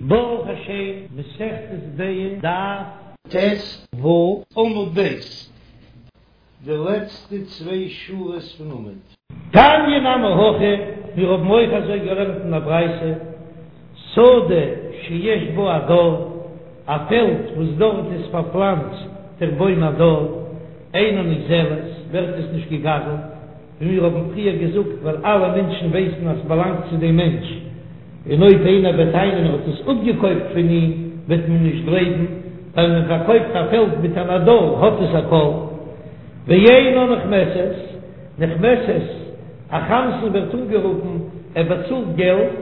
ברוך השם, מסכת ביצה, דף ט"ו, עמוד ב', די לעצטע צוויי שורות פון עמוד. תניא נמי הכי, מיר האבן אויך אזוי געלערנט אין א ברייתא, שדה שיש בה הדר, א פעלד וואס דארט איז פארפלאנצט דער בוים הדר, אינה נגזלת, ווערט עס נישט געגזלט, ווי מיר האבן פריער געזאגט, ווייל אלע מענטשן ווייסן אז ס'באלאנגט צו דעם מענטש, און אויב איינער וועט טענה'ן ער האט עס אפגעקויפט פון אים, וועט מען נישט גלייבן, ווייל מען פארקויפט א פעלד מיט אן הדר האט עס א קול. ואינה נחמסת, נחמסת, א חמסן ווערט אנגערופן, ער באצאלט געלט,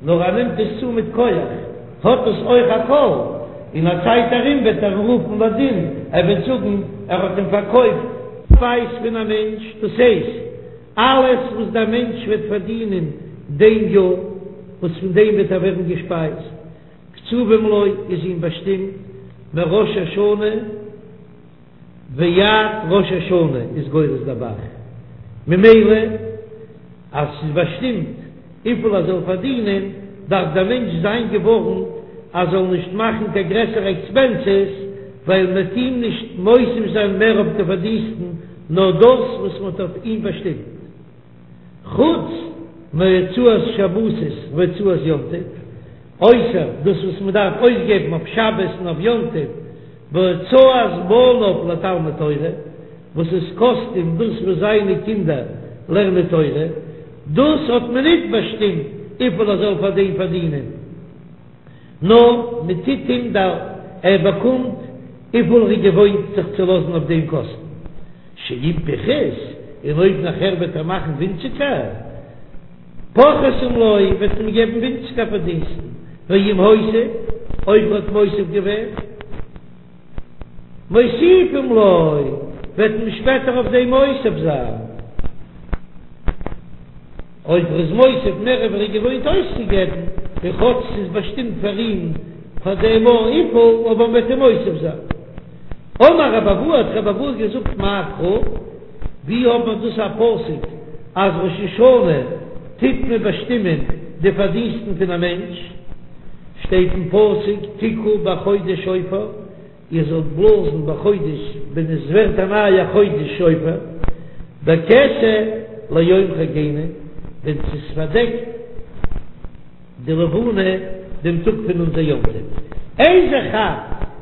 נאר ער נעמט עס צו מיט כח, האט עס אויך א קול, אין א צייט ארום וועט ער אים רופן לדין, ער וועט זאגן ער האט אים פארקויפט. שפייז פון א מענטש, דאס הייסט, אלעס וואס דער מענטש וועט פארדינען דעם יאר, וואס פון דעם וועט ער ווערן געשפייזט, קצובים לו, איז אים באשטימט מראש השנה ועד ראש השנה איז גורס דער ב"ח, ממילא אז ס'איז באשטימט וויפיל ער זאל פארדינען, דארף דער מענטש זיין געווארנט אז זאל נישט מאכן קיין גרעסערע עקספענסעס, ווייל מ'וועט אים נישט מוסיף זיין מער אויף די פארדינסטן, נאר דאס וואס מ'האט אויף אים באשטימט. חוץ מהוצאת שבתות והוצאת יום טוב, אויסער דאס וואס מען דארף אויסגעבן אויף שבת און אויף יום טוב, והוצאת בניו לתלמוד תורה, וואס עס קאסט אים דאס וואס זיינע קינדער לערנען תורה, דאס האט מען ניט באשטימט וויפיל ער זאל פאר דעם פארדינען. נאר מען טוט אים דא, ער באקומט וויפיל ער איז געוואוינט זיך צו לאזן אויף דעם קאסטן, שאם פחת, און אויב נאכער וועט ער מאכן ווינציגער, פוחתים לו, וועט מען געבן ווינציגער פארדינסטן, ואם הוסיף, אויב ער האט מוסיף געווען, מוסיפים לו, וועט מען שפעטער אויף דעם מוסיף זיין. אויב ער איז מוסיף מער ווי ער איז געוואוינט אויסצוגעבן, און כאטש ס'איז באשטימט פאר אים פאר דעם יאר וויפיל, אבער מ'וועט אים מוסיף זיין. אמר רבי אבהו האט רבי אבהו געזאגט מאי קרא, ווי האט מען דאס א פסוק אז ראש השנה טוט מען באשטימען די פארדינסטן פון א מענטש? שטייט אין פסוק תקעו בחודש שופר, איר זאלט בלאזן בחודש ווען עס ווערט א נייער חודש שופר, בכסה ליום חגנו, ווען ס'איז פארדעקט די לבנה דעם טאג פון אונזער יום טוב, איזה חג,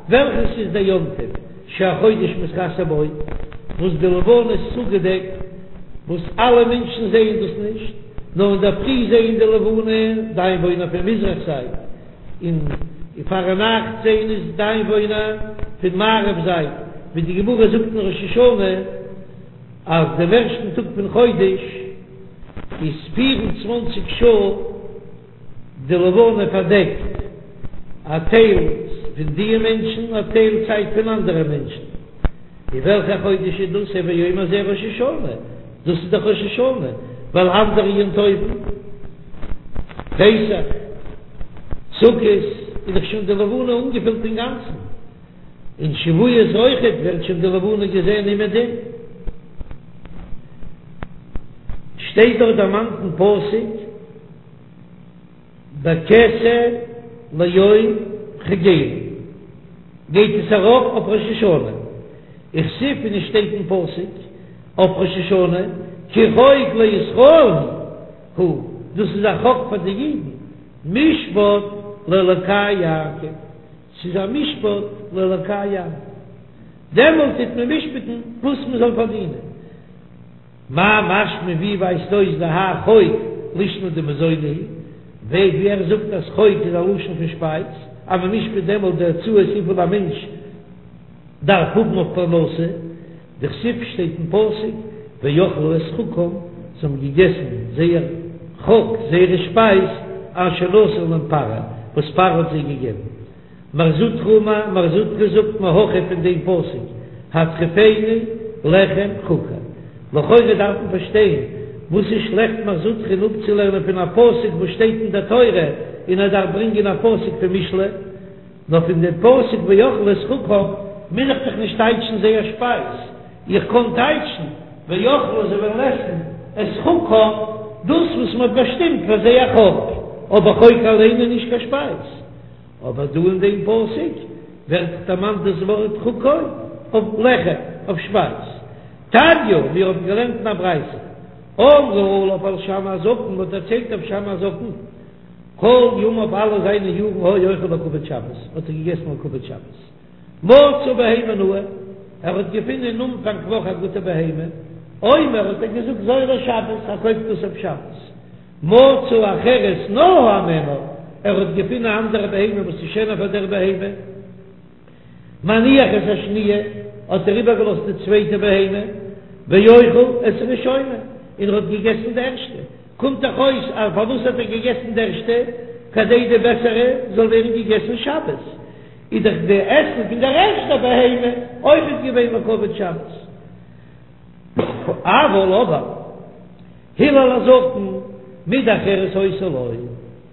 וועלכעס איז דער יום טוב שהחודש מתכסה בו, וואס די לבנה איז צוגעדעקט, וואס אלע מענטשן זעען דאס נישט, נאר אינדערפרי זעען די לבנה די איינוואוינער פון מזרח זייט, און פארנאכט זעען עס די איינוואוינער פון מערב זייט, ווי די גמרא זאגט אין ראש השנה אז דעם ערשטן טאג פון חודש איז פיר און צוואנציג שעה די לבנה פארדעקט א טייל פון די מענטשן, א טייל צייט פון אנדערע מענטשן. און וועלכע חודש איז דאס? הוי אומר זה ראש השנה, דאס איז דאך ראש השנה, ווייל אנדערע יום טובים, פסח, סוכות, איז דאך שוין די לבנה אנגעפילט אינגאנצן, און שבועות אויכעט ווערט שוין די לבנה געזען אומעדום. שטייט דאך דערמאנט אין פסוק. בכסה ליום חגנו גייט עס ארויף אויף ראש השנה, וכתיב און עס שטייט אין פסוק אויף ראש השנה כי חוק לישראל הוא, דאס איז א חוק פאר די אידן, משפט לאלקי יעקב, ס'איז א משפט לאלקי יעקב, דעמאלט טוט מען משפט'ן וואס מען זאל פארדינען. מאי משמע ווי ווייזט אויס דהאי חוק לישנא דמזוני הוא, ווי ער זאגט אז חוק איז א לשון פון שפייז, אז מען משפט דעמאלט די הוצאות וויפיל א מענטש דארף האבן אויף פרנסה, דכתיב שטייט אין פסוק ואכלו את חקם, זיי האבן געגעסן זייער חק, זייערע שפייז, אשר נתן להם פרעה, וואס פרעה האט זיי געגעבן. מר זוטרא אמר, מר זוטרא זאגט מהכא פון דעם פסוק, הטריפני לחם חוקי. לכאורה דארף מען פארשטיין, וואס איז שלעכט מר זוטרא'ן אפצולערנען פון א פסוק וואס שטייט אין דער תורה, און ער דארף ברענגען א פסוק פון משלי? נאר פון דעם פסוק ואכלו את חקם מוז איך דאך נישט טייטשן זייער שפייז, איך קען טייטשן ואכלו זיי וועלן עסן את חקם, דאס וואס מען האט באשטימט פאר זייער חק, אבער חוק אליין איז נישט קיין שפייז. אבער דא אין דעם פסוק ווערט דערמאנט דאס ווארט חוקו אויף לחם, אויף שפייז. תניא, מיר האבן געלערנט אין א ברייתא, אמרו עליו על שמאי הזקן, מ'האט דערציילט אויף שמאי הזקן, כל ימיו אלע זיינע יארן היה אוכל לכבוד שבת, האט ער געגעסן לכבוד שבת. מצא בהמה נאה, ער האט געפונען אין אנפאנג וואך א גוטע בהמה, אומר האט ער געזאגט זו לשבת, ער קויפט דאס אויף שבת. מצא אחרת נאה הימנה, ער האט געפונען א אנדערע בהמה וואס איז שענער פאר דער בהמה. מניח את השניה, האט ער איבערגעלאזט די צווייטע בהמה, ואוכל את הראשונה, און ער האט געגעסן די ערשטע. קומט דאך אויס אז פארוואס האט ער געגעסן די ערשטע? כדי די בעסערע זאל ווערן געגעסן שבת. איז דאך די עסן פון דער ערשטער בהמה אויכעט געווען לכבוד שבת. אבל אבער הלל הזקן מידה אחרת היתה לו,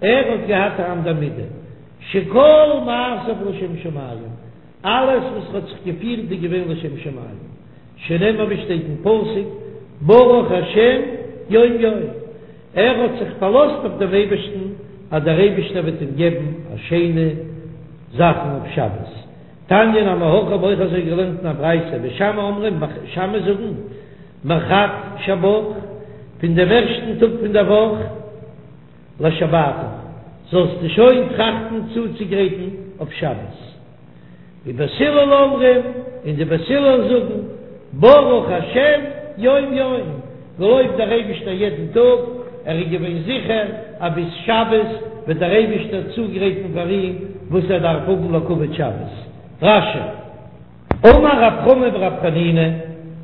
ער האט געהאט א אנדער מידה, שכל מעשיו לשם שמים, אלעס וואס ער האט זיך געפירט איז געווען לשם שמים, שנאמר ווי שטייט אין פסוק ברוך השם יום יום, ער האט זיך פארלאזט אויף דעם אייבערשטן אז דער אייבערשטער וועט אים געבן א שיינע זאכן אויף שבת. תניא נמי הכי האב אויך אזוי געלערנט אין א ברייתא, בית שמאי אומרים, בית שמאי זאגן, מחד שבך, פון דעם ערשטן טאג פון דער וואך, לשבתך, זאלסטו שוין טראכטן צוצוגרייטן אויף שבת. ובית הלל אומרים, און די בית הלל זאגן, ברוך השם יום יום, געלויבט דער אייבישטער יעדן טאג, ער איז געווען זיכער אז ביז שבת וועט דער אייבישטער צוגרייטן פאר אים וואס ער דארף האבן לכבוד שבת. רש"י. אמר רב חמא ברב חנינא,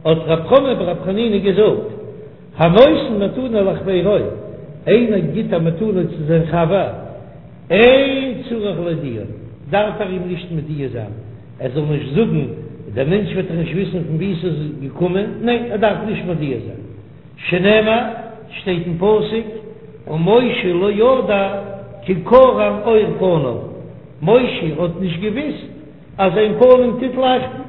האט רב חמא ברב חנינא געזאגט, הנותן מתנה לחבירו, איינער גיט א מתנה צו זיין חבר, אין צריך להודיעו, דארף ער אים נישט מודיע זיין, ער זאל נישט זאגן, דער מענטש וועט דאך נישט וויסן פון וואו עס איז געקומען, ניין, ער דארף נישט מודיע זיין, שנאמר, שטייט אין פסוק, ומשה לא ידע כי קרן עור פניו, משה האט נישט געוויסט אז זיין פנים טוט לייכטן,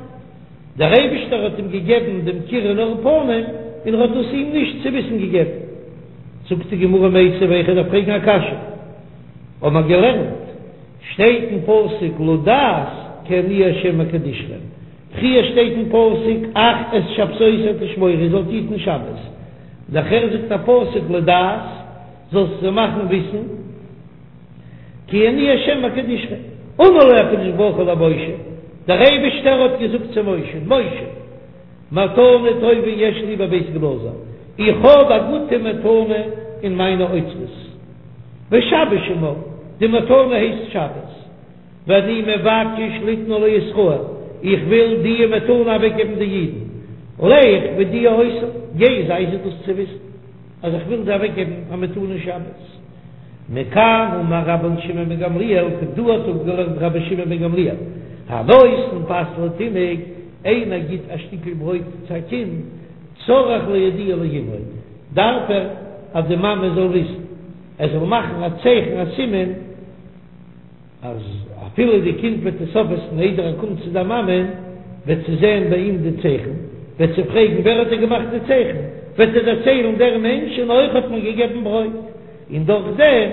דער אייבישטער האט אים געגעבן דעם קרן עור פנים און ער האט דאס אים נישט צו וויסן געגעבן. זאגט די גמרא מיתיבי, איך דארף פרעגן א קשיא, האבן מיר געלערנט, שטייט אין פסוק לדעת כי אני ה' מקדשכם, פריער שטייט אין פסוק אך את שבתותי תשמורו איר זאלט היטן שבת, נאכער זאגט א פסוק לדעת זאלסט זיי מאכן וויסן, כי אני ה' מקדשכם, אמר לו הקדוש ברוך הוא למשה, דער אייבערשטער האט געזאגט צו משה, משה, מתנה טובה יש לי בבית גנזי, איך האב א גוטע מתנה אין מיינע אוצרות, ושבת שמה, די מתנה הייסט שבת, ואני מבקש ליתנה לישראל, איך וויל די מתנה אוועקגעבן די אידן, לך והודיע אותם, גיי זיי זיי דאס צו וויסן. אז איך וויל זיי אוועקגעבן א מתנה שבת. מכאן אמר רבן שמעון בן גמליאל, פון דא האט אפגעלערנט רבי שמעון בן גמליאל, הנותן פת לתינוק, איינער גיט א שטיקל ברויט צו א קינד, צריך להודיע לאמו, דארף ער אז די מאמע זאל וויסן, ער זאל מאכן א צייכן א סימן, אז אפילו די קינד וועט עס אויפעסן איידער ער קומט צו די מאמע, וועט זי זען ביי אים די צייכן, וועט זי פרעגן ווער האט דיר געמאכט די צייכן, וועט ער דערציילן דער מענטש און אויך האט מיר געגעבן ברויט, און דורך דעם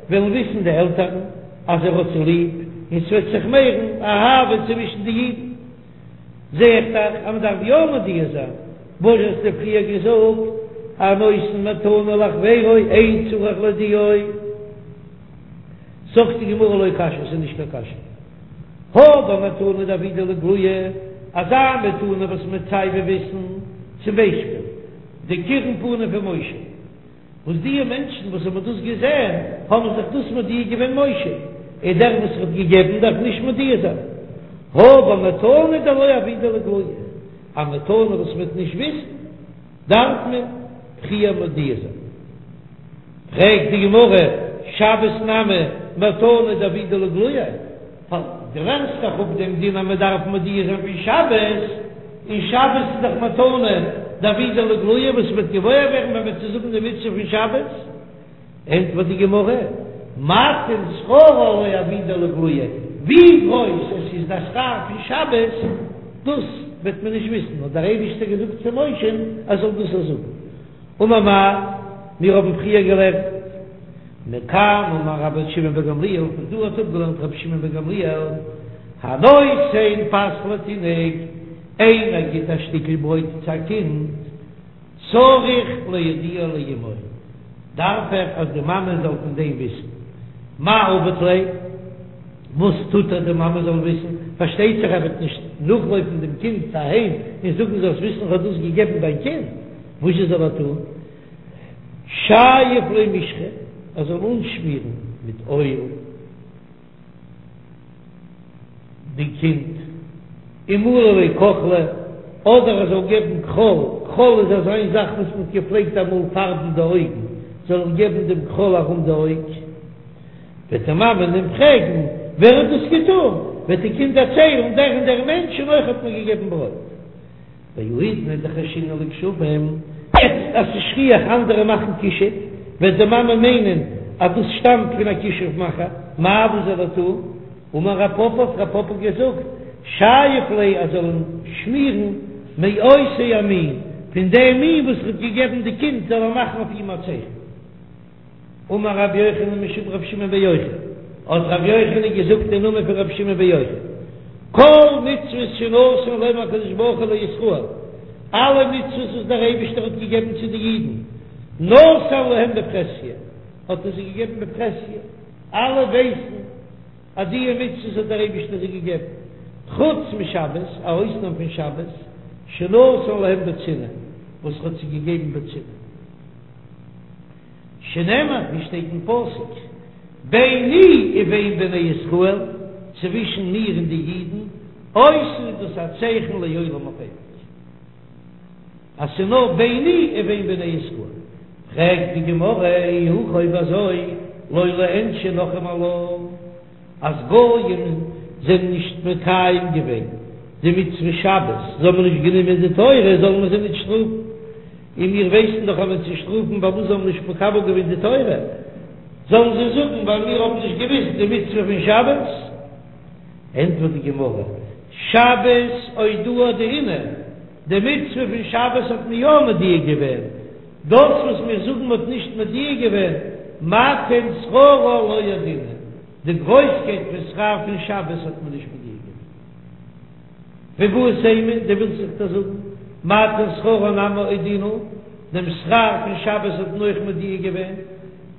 וועלן וויסן די עלטערן אז ער האט זיי ליב, און ס'וועט זיך מערן אהבה צווישן די אידן. זע איך דאך אז מ'דארף יא מודיע זיין, וואס האסטו פריער געזאגט, הנותן מתנה לחבירו אין צריך להודיעו. זאגט די גמרא לא קשיא, ס'איז נישט קיין קשיא. הא במתנה דעבידא לאיגלויי, אזא מתנה וואס מ'וועט סייווי וויסן, צום ביישפיל, די קירון פנים פון משה, וואס די מענטשן וואס האבן דאס געזען האבן זיך דאס מודיע געווען משה, און דער וואס האט געגעבן דארף נישט מודיע זיין. הא במתנה דלא עבידא לאיגלויי, א מתנה וואס מ'וועט נישט וויסן, דארף מען פריער מודיע זיין. פרעגט די גמרא, שבת נמי מתנה דעבידא לאיגלויי, דו לערנסט דאך אפ דעם דין אז מען דארף מודיע זיין פון שבת, און שבת איז דאך מתנה דעבידא לאיגלויי וואס מ'וועט געוואויר ווערן ווען מ'וועט זאגן די מצוה פון שבת. ענטפערט די גמרא, מתן שכרה לא עבידא לאיגלויי, ווי גרויס עס איז דער שכר פון שבת, דאס וועט מען נישט וויסן, האט דער אייבישטער געזאגט צו משה'ן ער זאל דאס זאגן. אמר מר, מיר האבן פריער געלערנט. מכאן אמר רבי שמעון בן גמליאל, פון דא האט אפגעלערנט רבי שמעון בן גמליאל, הנותן פת לתינוק, איינער גיט א שטיקל ברויט צו א קינד, צריך להודיע לאמו, דארף ער אז די מאמע זאל פון דעם וויסן. מאי עביד ליה? וואס טוט ער די מאמע זאל וויסן? פארשטייט זיך ער וועט נישט נאכלויפן דעם קינד אהיים און זאגן זאלסט וויסן איך האב דאס געגעבן דיין קינד, וואזשע זאל ער טון? שייף ליה משחא, ער זאל אנשמירן מיט אויל די קינד, ומלי ליה כוחלא, אדער ער זאל געבן כחול, כחול איז אזא זאך וואס מען האט געפלעגט אמאל פארבן די אויגן, זאל ער געבן דעם כחול ארום די אויג, וועט די מאמע אים פרעגן ווער האט דאס געטון, וועט די קינד דערציילן דער און דער מענטש און אויך האט מיר געגעבן ברויט. והאידנא דחיישינן לכשפים, יעצט אז ס'איז שכיח אנדערע מאכן כישוף, וועט די מאמע מיינען אז דאס שטאמט פון א כישוף מאכער, מאי וואס זאל ער טון? אמר רב פפא האט רב פפא געזאגט, שייף ליה ער זאל אים שמירן מאותו המין, פון דעם מין וואס ער האט געגעבן די קינד זאל ער מאכן אויף אים א צייכן. אמר רבי יוחנן משום רבי שמעון בן יוחאי, האט רבי יוחנן געזאגט אין נאמען פון רבי שמעון בן יוחאי, כל מצוות שנתן להם הקדוש ברוך הוא לישראל, אלע מצוות וואס דער אייבישטער האט געגעבן צו די אידן, נתן להם בפרהסיא, האט ער זיי געגעבן בפרהסיא, אלע ווייסן אז די מצוות האט דער אייבישטער זיי געגעבן, חוץ משבת, א אויסנאם פון שבת, שנתן להם בצנעה, וואס ער האט זיי געגעבן בצנעה. שנאמר, ווי שטייט אין פסוק, ביני ובין בני ישראל, צווישן מיר און די אידן, אות איז דאס א צייכן לעולם אויף אייביג, אז ס'איז נאר ביני ובין בני ישראל. פרעגט די גמרא, אי הכי אויב אזוי, לא ליענשו נכרים עלה. אז גויים זענען נישט מקיים געווען די מצוה שבת, זיי האבן נישט גענומען די תורה, זאלן מיר זיי נישט שטראפן? און מיר ווייסן דאך אז מען צו שטראפן פארוואס זיי האבן נישט מקבל געווען די תורה, זאלן זיי זאגן ווייל מיר האבן נישט געוויסט די מצוה פון שבת? ענטפערט די גמרא, שבת אודועי אודעינהו, די מצוה פון שבת האט מען יא מודיע געווען, דאס וואס מיר זאגן מ'האט נישט מודיע געווען, מתן שכרה לא אודעינהו, די גרויסקייט פון שכר פון שבת האט מען נישט מודיע געווען. ואיבעית אימא, דו ווילסט זיך דאס זאגן, מתן שכרה נמי אודעינהו, דעם שכר פון שבת האט מען אויך מודיע געווען,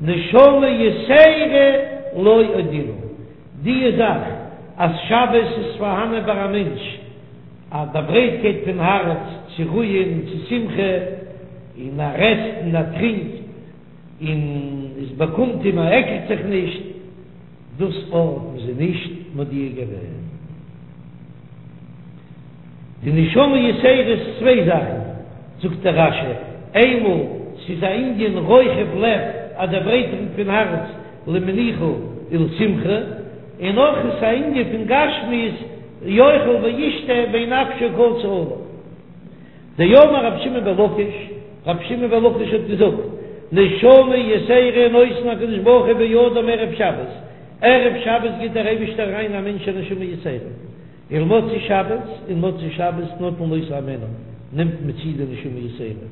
נשמה יתירה לא אודעינהו, די זאך אז שבת איז פארהאנען ביי א מענטש, א ברייטקייט פון הארץ צו רוען און צו שמחה, און ער עסט און ער טרינקט און עס באקומט אים, ער עקלט זיך נישט, דאס האט מען זיי נישט מודיע געווען. די נשמה יתירה איז צוויי זאכן, זאגט דער רש"י, איינמאל ס'איז א ענין רוחב לב, א דערברייטערונג פון הארץ למנוחה ולשמחה, און אויך איז א ענין פון גשמיות, יאכל וישתה ואין נפשו קצה עליו. דאמר רבי שמעון בן לקיש, רבי שמעון בן לקיש האט געזאגט, נשמה יתירה נותן הקדוש ברוך הוא באדם ערב שבת, ערב שבת גיט דער אייבישטער אריין א מענטש א נשמה יתירה, ולמוצאי שבת, און מוצאי שבת נוטלין אותה הימנה, נעמט מען צו די נשמה יתירה,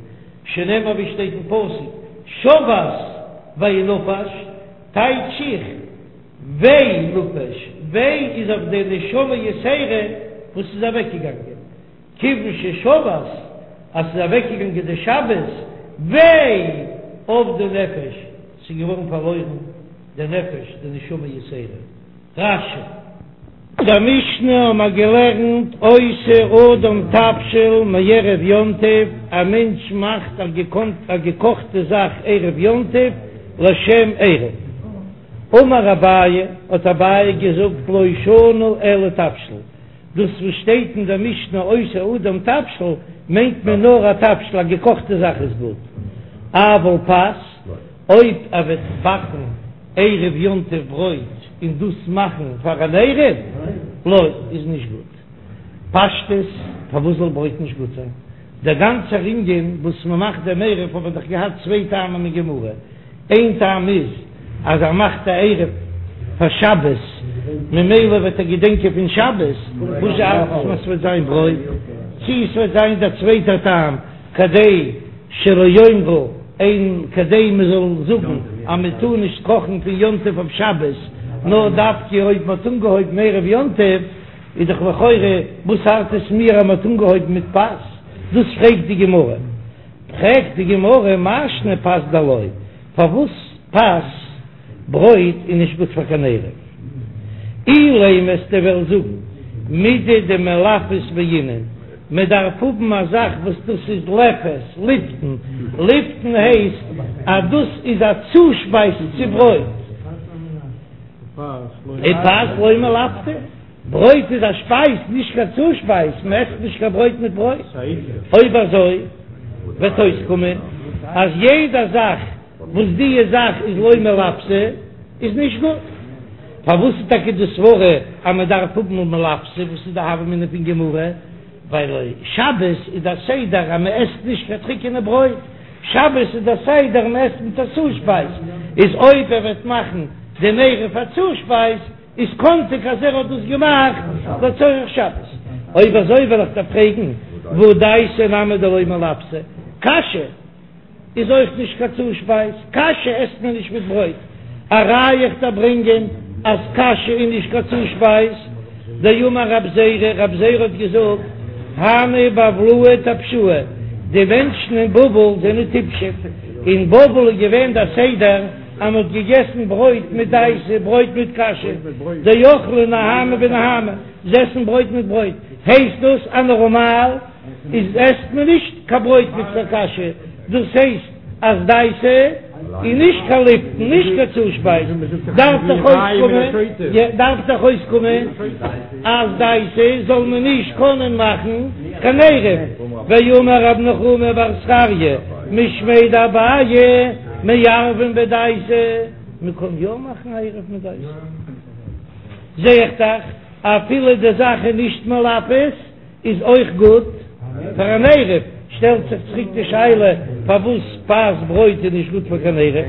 שנאמר ווי שטייט אין פסוק, שבת וינפש, טייטש איך, וויי נפש, וויי איז אויף די נשמה יתירה וואס איז אוועקגעגאנגען, כיוון ששבת, אז ס'איז אוועקגעגאנגען די שבת, וויי אבדה נפש, ס'איז געווארן פארלוירן די נפש, די נשמה יתירה. רש"י. אין דער משנה האבן מיר געלערנט עושה אדם תבשיל מערב יום טוב, א מענטש מאכט א געקאכטע זאך ערב יום טוב לשם עירוב. אמר אביי, האט אביי געזאגט לא שנו אלא תבשיל, דאס וואס שטייט אין דער משנה עושה אדם תבשיל מיינט מען נאר א תבשיל, א געקאכטע זאך איז גוט, אבל פת, אויב ער וועט באקן ערב יום טוב ברויט און דאס מאכן פאר אן עירוב, לא, איז נישט גוט. פשטות, פארוואס זאל ברויט נישט גוט זיין? דער גאנצער ענין וואס מען מאכט דעם עירוב האט מען דאך געהאט צוויי טעמים אין גמרא, איין טעם איז אז ער מאכט א עירוב פאר שבת ממילא וועט ער געדענקען פון שבת, וואס ארט עס אז ס'וועט זיין ברויט, צי ס'וועט זיין דער צווייטער טעם כדי שלא יאמרו אין כדי מען זאל זאגן. אז מען טאר נישט קאכן פון יום טוב אויף שבת, נאר דווקא אויב מען האט אנגעהויבן ערב יום טוב, איז דאך לכאורה וואס ארט עס מיר אז מען האט אנגעהויבן מיט פת? דאס פרעגט די גמרא. פרעגט די גמרא מאי שנא פת דלא, פארוואס פת, ברויט, איז נישט גוט פאר קיין עירוב? אילימא וועסטו וועלן זאגן מידי דמלפת בעינן, מען דארף האבן א זאך וואס דאס איז לפת, לפתן, לפתן הייסט אז דאס איז א צושפייז צו ברויט, ופת לא מלפתא. ברויט איז א שפייז, נישט קיין צושפייז, מען עסט נישט קיין ברויט מיט ברויט. אויב אזוי וועט אויסקומען אז יעדע זאך וואס דיע זאך איז לא מלפתא איז נישט גוט. פארוואס איז טאקע די סברה אז מען דארף האבן מלפתא? וואס איז די הוה אמינא פון גמרא? ווייל שבת איז דער סדר אז מען עסט נישט קיין טריקענע ברויט, שבת איז דער סדר מען עסט מיט א צושפייז, איז אויב ער וועט מאכן דעם עירוב א צושפייז, איז קאנטיג אז ער האט דאס געמאכט לצורך שבת. אויב אזוי וועל איך דיר פרעגן, והא דייסא נמי דלא מלפתא, קאשע איז אויך נישט קיין צושפייז, קאשע עסט מען נישט מיט ברויט, א ראיה איך דיר ברענגען אז קאשע איז נישט קיין צושפייז, דאמר רב זירא, רב זירא האט געזאגט, הני בבלאי טפשאי, די מענטשן אין בבל זענען טיפשים, אין בבל איז געווען דער סדר, אז מען האט געגעסן ברויט מיט דייסע, ברויט מיט קאשע, דאכלי נהמא בנהמא, זיי עסן ברויט מיט ברויט, הייסט דאס אז נארמאל איז עסט מען נישט קיין ברויט מיט קיין קאשע, דאס הייסט אז דייסע איז נישט קיין לפתן, נישט קיין צושפייז, דארף דאך אויסקומען, דארף דאך אויסקומען אז דייסע זאל מען נישט קענען מאכן קיין עירוב, ואמר רב נחומי בר זכריה משמיה דאביי מערבין בדייסה, מען קען יא מאכן א עירוב מיט דייסה, זע איך דאך אפילו די זאך איז נישט מלפת איז אויך גוט פאר אן עירוב, שטעלט זיך צוריק די שאלה פארוואס פת ברויט איז נישט גוט פאר קיין עירוב,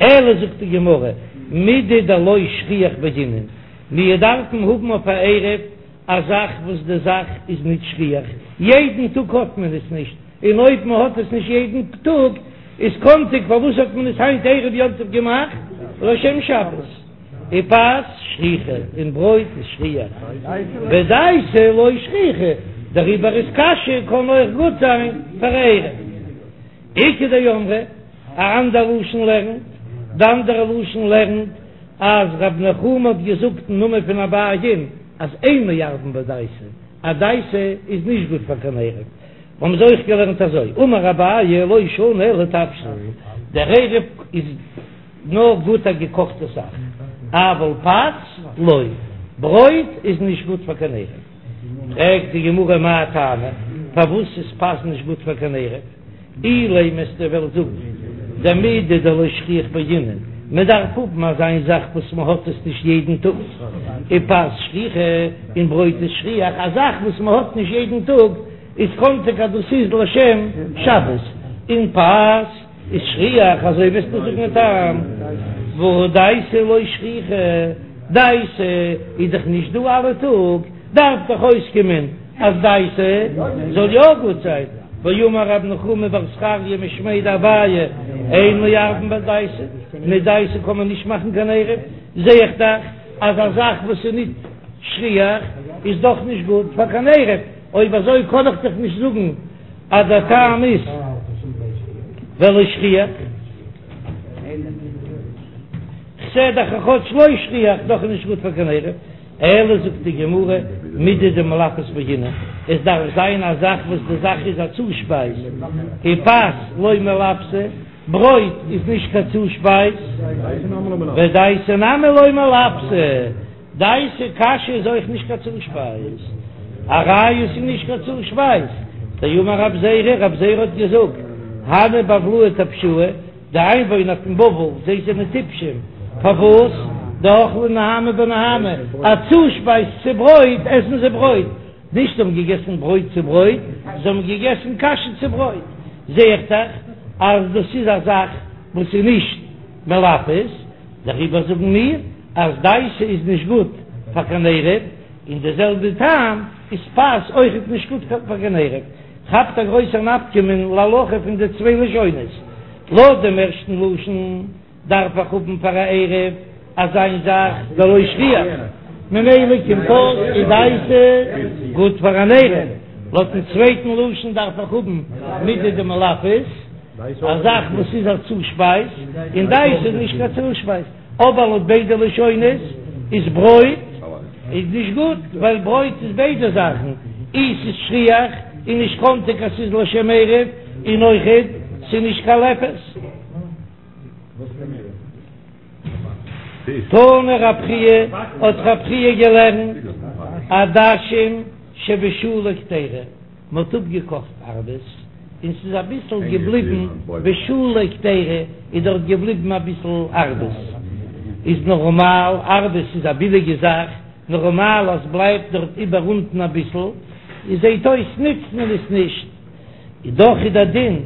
אלא זאגט די גמרא מידי דלא שכיח בעינן, מיר דארפן האבן אויף א עירוב א זאך וואס די זאך איז נישט שכיח, יעדן טאג האט מען עס נישט, און אויב מען האט עס נישט יעדן טאג איז קאנטיג פארוואס האט מען עס היינט ערב יום טוב געמאכט לשם שבת, ופת שכיחא און ברויט איז שכיח, ודייסה לא שכיחא, דעריבער איז קאשע קען אויך גוט זיין פאר עירוב. איכא דאמרי, א אנדער לשון לערנט, די אנדערע לשון לערנט אז רב נחומי האט געזאגט אין נאמען פון אביי'ן אז אין מערבין בדייסה, אז דייסה איז נישט גוט פאר קיין עירוב, האבן זיי אויך געלערנט אזוי, אמר אביי לא שנו אלא תבשיל, דער עירוב איז נאר גוט א געקאכטע זאך, אבל פת לא, ברויט איז נישט גוט פאר קיין עירוב. פרעגט די גמרא מאי טעמא, פארוואס איז פת נישט גוט פאר קיין עירוב? אילימא וועסטו וועלן זאגן דמידי דלא שכיח בעינן, מען דארף האבן אזא זאך וואס מען האט עס נישט יעדן טאג, ופת שכיחא, און ברויט איז שכיח, א זאך וואס מען האט נישט יעדן טאג איז קאנטיג אז דאס איז לשם שבת, און פת איז שכיח, אזוי וועסטו זאגן א טעם, והא דייסה לא שכיחא, דייסה איז דאך נישט דא אלע טאג, דארף דאך אויסקומען אז דייסה זאל יא גוט זיין, ואמר רב נחומי בר זכריה משמיה דאביי, אין מערבין בדייסה, מיט דייסה קען מען נישט מאכן קיין עירוב, זע איך דאך אז א זאך וואס איז ניט שכיח איז דאך נישט גוט פאר קיין עירוב, אויב אזוי קען איך דאך נישט זאגן אז דער טעם איז ווייל לא שכיח. כ'זע דאך אז כאטש לא שכיח דאך איז נישט גוט פאר קיין עירוב. אלא זאגט די גמרא, מידי דמלפת בעינן, עס דארף זיין א זאך וואס די זאך איז א צושפייז, ופת לא מלפתא, ברויט איז נישט קיין צושפייז, ודייסה נמי לא מלפתא, דייסה קאשע איז אויך נישט קיין צושפייז, א ראיה ס'איז נישט קיין צושפייז, דאמר רב זירא, רב זירא האט געזאגט, הני בבלאי טפשאי, די איינוואוינער פון בבל, זיי זענען טיפשים, פארוואס? דאכלי נהמא בנהמא, א צושפייז צו ברויט עסן זיי ברויט, נישט זיי האבן געגעסן ברויט צו ברויט, זיי האבן געגעסן קאשע צו ברויט, זע איך דאך אז דאס איז א זאך וואס איז נישט מלפת, דעריבער זאגן מיר אז דייסה איז נישט גוט פאר קיין עירוב, און די זעלבע טעם איז פת אויכעט נישט גוט פאר קיין עירוב. כאפט א גרויסער נפקא מינה להלכה פון די צוויי לשונות. לויט דעם ערשטן לשון דארף איך האבן פאר א עירוב אזא זאך דלא שכיח, ממילא קומט אויס איז דייסא גוט פאר אן עירוב, לויטן צווייטן לשון דארף איך האבן מידי דמלפת, א זאך וואס איז א צושפייז, און דייסא איז נישט קיין צושפייז, אבער לויט ביידע לשונות איז ברויט איז נישט גוט, ווייל ברויט איז ביידע זאכן, אי ס'איז שכיח און נישט קאנטיג אז ס'איז לשם עירוב, און אויכעט ס'איז נישט קיין לפת. תנא רב חייא, האט רב חייא געלערנט, עדשים שבשולי קדירה, מ'האט אפגעקאכט ארבעס און ס'איז אביסל געבליבן בשולי קדירה, איז דארט געבליבן אביסל ארבעס, איז נארמאל, ארבעס איז א ביליגע זאך, נארמאל אז בלייבט דארט איבער אונטן אביסל, איז זעט אויס נוצט מען עס נישט. איז דאך איז דער דין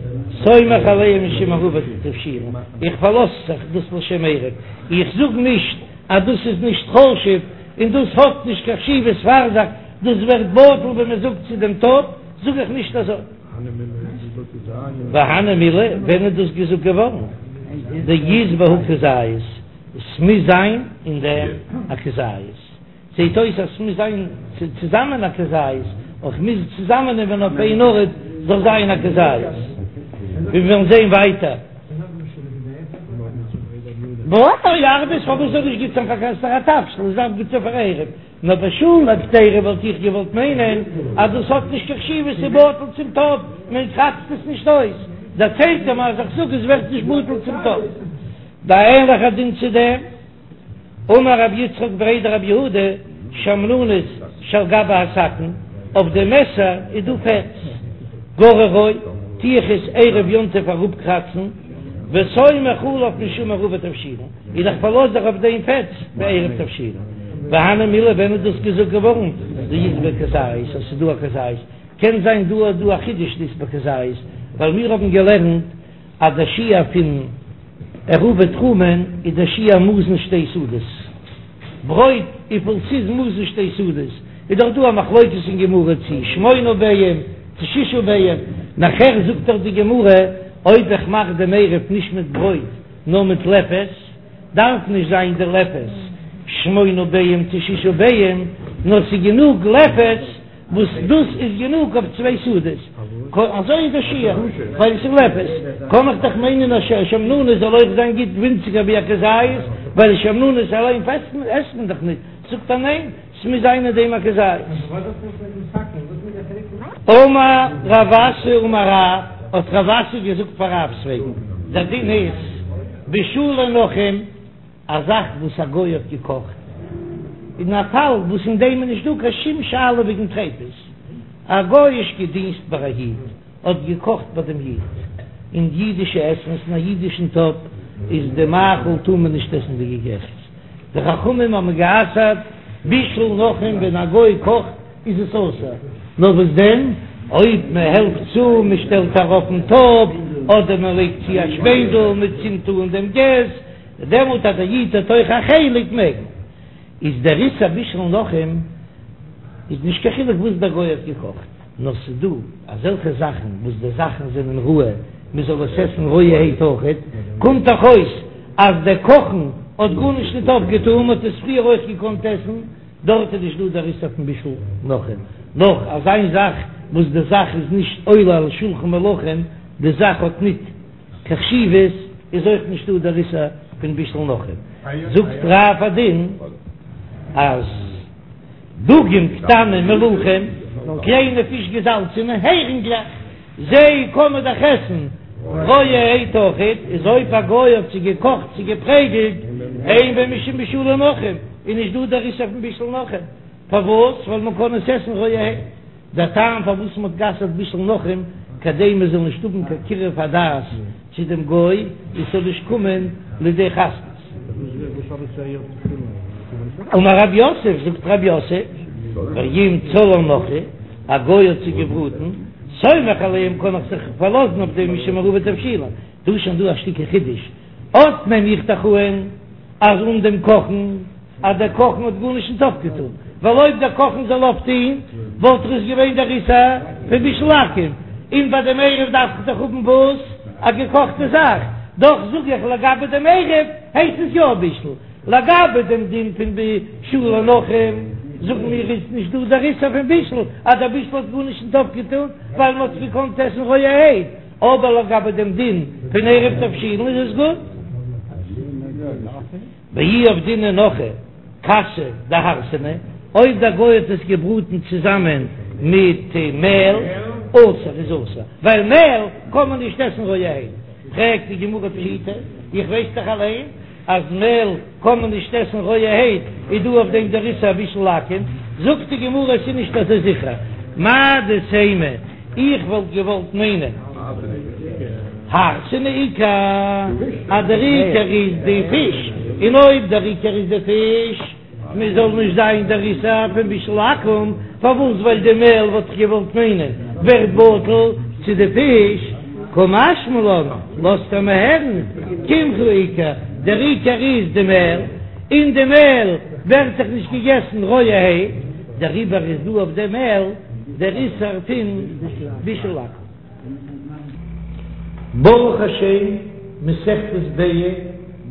סומך עליהם משום עירובי תבשילין, איך פארלאז זיך דאס לשם עירוב, איך זאג נישט אז דאס איז נישט חשוב און דאס האט נישט קיין חשיבות פאר זיך, דאס ווערט בטל ווען מען זאגט צו דעם טאפ, זאג איך נישט אזוי. והני מילי, ווען איז דאס געזאגט געווארן? דאית בהו כזית, עס מוז זיין אין דעם א כזית. זעט אויס אז ס'מוז זיין צוזאמען א כזית, אויך מוז צוזאמען נעמען אויף איין ארט זאל זיין א כזית, ווי מיר וועלן זען ווייטער. אוי ארבעס פארוואס זאל נישט גוט זיין פאר קיין סארא תבשיל עס דארף גוט זיין פאר עירוב, נאר בשולי קדירה וואלט איך געוואלט מיינען אז דאס האט נישט קיין חשיבות ס'איז בטל צום טאפ מען קראצט עס נישט אויס, דערציילט ער מיר אז איך זאג עס ווערט נישט בטל צום טאפ. די ענליכע דין צו דעם. אמר רב יצחק בריה דרב יהודה, שמנונית שעל גבי הסכין, אויף די מעסער איז דא פעטס, גוררו, טו איך עס ערב יום טוב אראפקראצן, וסומך עליו משום עירובי תבשילין, און איך פארלאז זיך אויף דעם פעטס בעירוב תבשילין. והני מילי ווען איז דאס געזאגט געווארן? דאית ביה כזית, אז ס'איז דא א כזית, קען זיין דא איז דא א חידוש דאית ביה כזית, ווייל מיר האבן געלערנט אז דער שיעור פון עירובי תחומין איז דער שיעור מזון שתי סעודות ברויט, וויפיל ס'איז מזון שתי סעודות איז דאך דא א מחלוקת אין גמרא צו שמונה ביעים צו שישה ביעים, נאכער זאגט דאך די גמרא אויב איך מאך דעם עירוב נישט מיט ברויט נאר מיט לפת דארף נישט זיין די לפת שמונה ביעים צו שישה ביעים נאר ס'איז גענוג לפת וואס דאס איז גענוג אויף צוויי סעודות, אזוי איז די שיעור, ווייל עס איז לפת, קען איך דאך מיינען אז שמנונית זאל אויך זיין גוט ווינציגער ווי א כזית, ווייל שמנונית אליין עסט מען דאך נישט, זאגט ער ניין, ס'מוז זיין אין דעם א כזית. אמר רב אסי אמר רב, האט רב אסי געזאגט פאר רב'ס וועגן, דער דין איז, בישולי נכרים, א זאך וואס א גוי האט געקאכט, אין א פאל וואס אין דעם איז נישט דא קיין שום שאלה וועגן טריפות, א גוי'אישקע דינסט ביי א איד האט געקאכט ביי דעם איד, און אידישע עסנס אין א אידישן טאפ איז די מאכל טאר מען נישט עסן די געקעכטס, די חכמים האבן גע'אסר'ט בישול נכרים ווען א גוי קאכט איז עס אסור, נאר וואס דען אויב מען העלפט צו, מען שטעלט ארויף דעם טאפ, אדער מען לייגט צו א שפענדל, מען צינדט אן דעם געז, דעמאלט אז דער איד האט אויך א חלק מעג מען. איז דער איסור בישול נכרים איז נישט קיין חילוק וואס דער גוי האט געקאכט, נאר ס'איז דא אזעלכע זאכן וואס די זאכן זענען ראוי מען זאל עס עסן רויערהייט אויכעט, קומט דאך אויס אז דער קאכן האט גארנישט ניט אויפגעטאן, מען האט עס פריער אויך געקאנט עסן, דארט איז נישט דא דער איסור פון בישול נכרים, נאך אזא זאך וואס די זאך איז נישט עולה על שולחן מלכים, די זאך האט ניט. קיין חשיבות איז אויך נישטא דער איסור פון בישול נכרים, זאגט רב א דין אז דגים קטנים מלוחים, קליינע פיש געזאלצענע הערינגלעך, זיי קען מען דאך עסן רויערהייט אויכעט, איז אויב א גוי האט זיי געקאכט צו געפרעגלט, אין בהם משום בישולי נכרים, איז נישט דא דער איסור פון בישול נכרים, פארוואס? ווייל מען קען עס עסן רויערהייט. דער טעם פארוואס מ'האט גע'אסר'ט בישול נכרים, כדי מ'זאל נישט האבן קיין קירוב הדעת צו דעם גוי, און ס'זאל נישט קומען לידי חתנות. אמר רב יוסף, זאגט רב יוסף, ואם צלאן נכרי, א גוי האט זיי געבראטן, סומך עליהם קען איך זיך פארלאזן אויף דעם משום עירובי תבשילין, דא איז שוין דא א שטיקל חידוש, אט נעם איך דאך אן אז אן דעם קאכן, אז דער קאכן האט גארנישט נישט אויפגעטון, ווייל אויב דער קאכן זאל אויפטון וואלט דאך עס געווען דער איסור פון בישול עכו"ם, און ביי דעם עירוב דארף איך דאך האבן וואס? א געקאכטע זאך, דאך זאג איך לגבי דעם עירוב הייסט עס יא בישול, לגבי דעם דין פון בישולי נכרים זאגן מיר איז נישט דא דער איסור פון בישול אז דער בישול האט גארנישט נישט אויפגעטון ווייל מען האט עס געקאנט עסן רויערהייט, אבער לגבי דעם דין פון עירוב תבשילין איז עס גוט. ואי עבדינהו נכרי כסא דהרסנא, אויב דער גוי האט עס געבראטן צוזאמען מיט מעל, אסור איז אסור, ווייל מעל קען מען נישט עסן רויערהייט, פרעגט די גמרא פשיטא, איך ווייס דאך אליין אז מעל קען מען נישט עסן רויערהייט, איז דא אויף דעם דער איסור בישול עכו"ם, זאגט די גמרא עס איז נישט אזוי זיכער, מהו דתימא, איך וואלט געוואלט מיינען הרסנא עיקר, אז דער עיקר איז די פיש, און אויב דער עיקר איז די פיש, מען זאל נישט זיין דער איסור פון בישול עכו"ם, פארוואס ווייל די מעל וואלט איך געוואלט מיינען ווערט בטל צו די פיש, קא משמע לן, לאזט ער מיר הערן, קמחא עיקר, דער עיקר איז די מעל, און די מעל ווערט דאך נישט געגעסן רויערהייט, דעריבער איז דא אויף די מעל דער איסור פון בישול עכו"ם. ברוך השם, מסכת ביצה,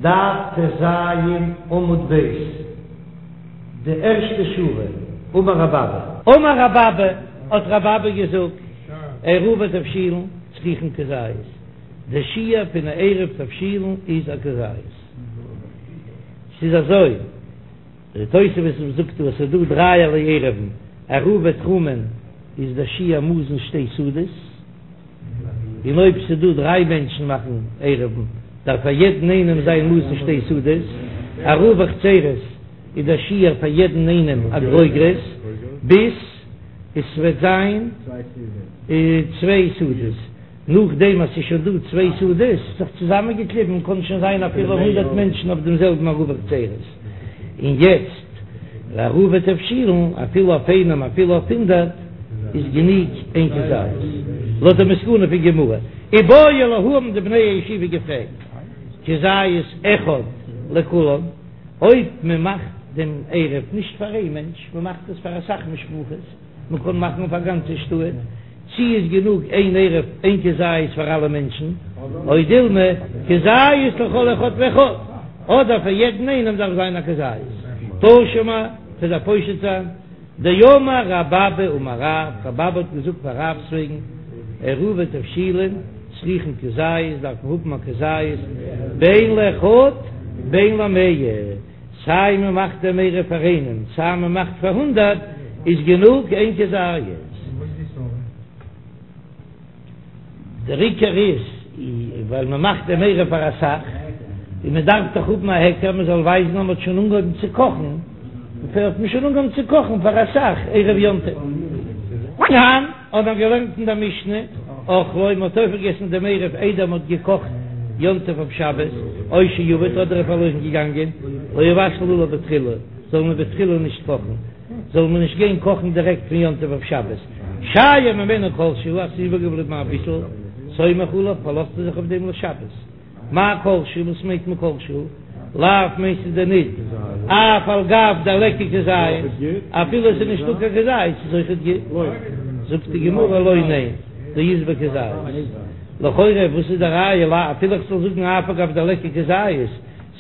דף טז עמוד ב', די ערשטע שורה, אמר רב אבא. אמר רב אבא, האט רב אבא געזאגט, עירובי תבשילין צריכין כזית, די שיעור פון א עירוב תבשילין איז א כזית. ס'איז אזוי. די תוספות זאגט אז ס'איז דא דרייערליי עירובין, עירובי תחומין איז דער שיעור מזון שתי סעודות, און אויב ס'איז דא דריי מענטשן מאכן עירובין דארף פאר יעדן איינעם זיין מזון שתי סעודות, עירובי חצירות איז דער שיעור פאר יעדן איינעם א גרוגרת ביז עס וועט זיין צוויי סעודות. נאכדעם אז ס'איז שוין דא צוויי סעודות זיך צוזאמענגעקליבן קען שוין זיין אפילו הונדערט מענטשן אויף דעם זעלבן עירובי חצירות, און יעצט לעירובי תבשילין אפילו אויף איינעם אפילו אויף הונדערט איז גענוג איין כזית, לויט די מסקנא פון גמרא. איבעיא להו האבן די בני הישיבה געפרעגט כזית אחד לכולן, אויב מען מאכט דעם עירוב נישט פאר איין מענטש, מען מאכט עס פאר אסאך משפחות, מען קען מאכן אויף א גאנצע שטאט, צי איז גענוג איין עירוב איין כזית פאר אלע מענטשן, או דילמא כזית לכל אחד ואחד, אדער פאר יעדן איינעם דארף זיין א כזית. תא שמע, כ'וועל דיר פושט זיין, דאמר רב אבא אמר רב, רב אבא האט געזאגט פאר רב'ס וועגן, עירובי תבשילין צריכין כזית, דארף מען האבן א כזית, בין לאחד בין למאה. סיי מען מאכט דעם עירוב פאר איינעם סיי מען מאכט פאר הונדערט איז גענוג איין כזית. דער עיקר איז ווייל מען מאכט דעם עירוב פאר אסאך און מען דארף דאך האבן א היכר מען זאל ווייזן אז מען האט שוין אנגעהויבן צו קאכן, האט מען שוין אנגעהויבן צו קאכן פאר אסאך ערב יום טוב. תנן, האט מען געלערנט אין דער משנה, אכלו, מען האט אויפגעגעסן דעם עירוב איידער מען האט געקאכט יום טוב אויף שבת, או שאבד, אדער איז פארלוירן געגאנגען, לא יבשל עליו בתחילה, זאל מען בתחילה נישט קאכן, זאל מען נישט גיין קאכן דירעקט פון יום טוב אויף שבת, שייר ממנו כל שהוא, אז ס'איז איבערגעבליבן אביסל, סומך עליו, פארלאזט ער זיך אויף דעם לשבת. מאי כל שהוא, וואס מיינט מען כל שהוא? לאו מיינסטו דען ניט אף על גב דליכא כזית, אפילו עס איז נישטא קיין כזית איז אויכעט גוט? זאגט די גמרא לא ניין, דאית ביה כזית. לכאורה וואס איז די ראיה לא אפילו איך זאל זאגן אף על גב דליכא כזית,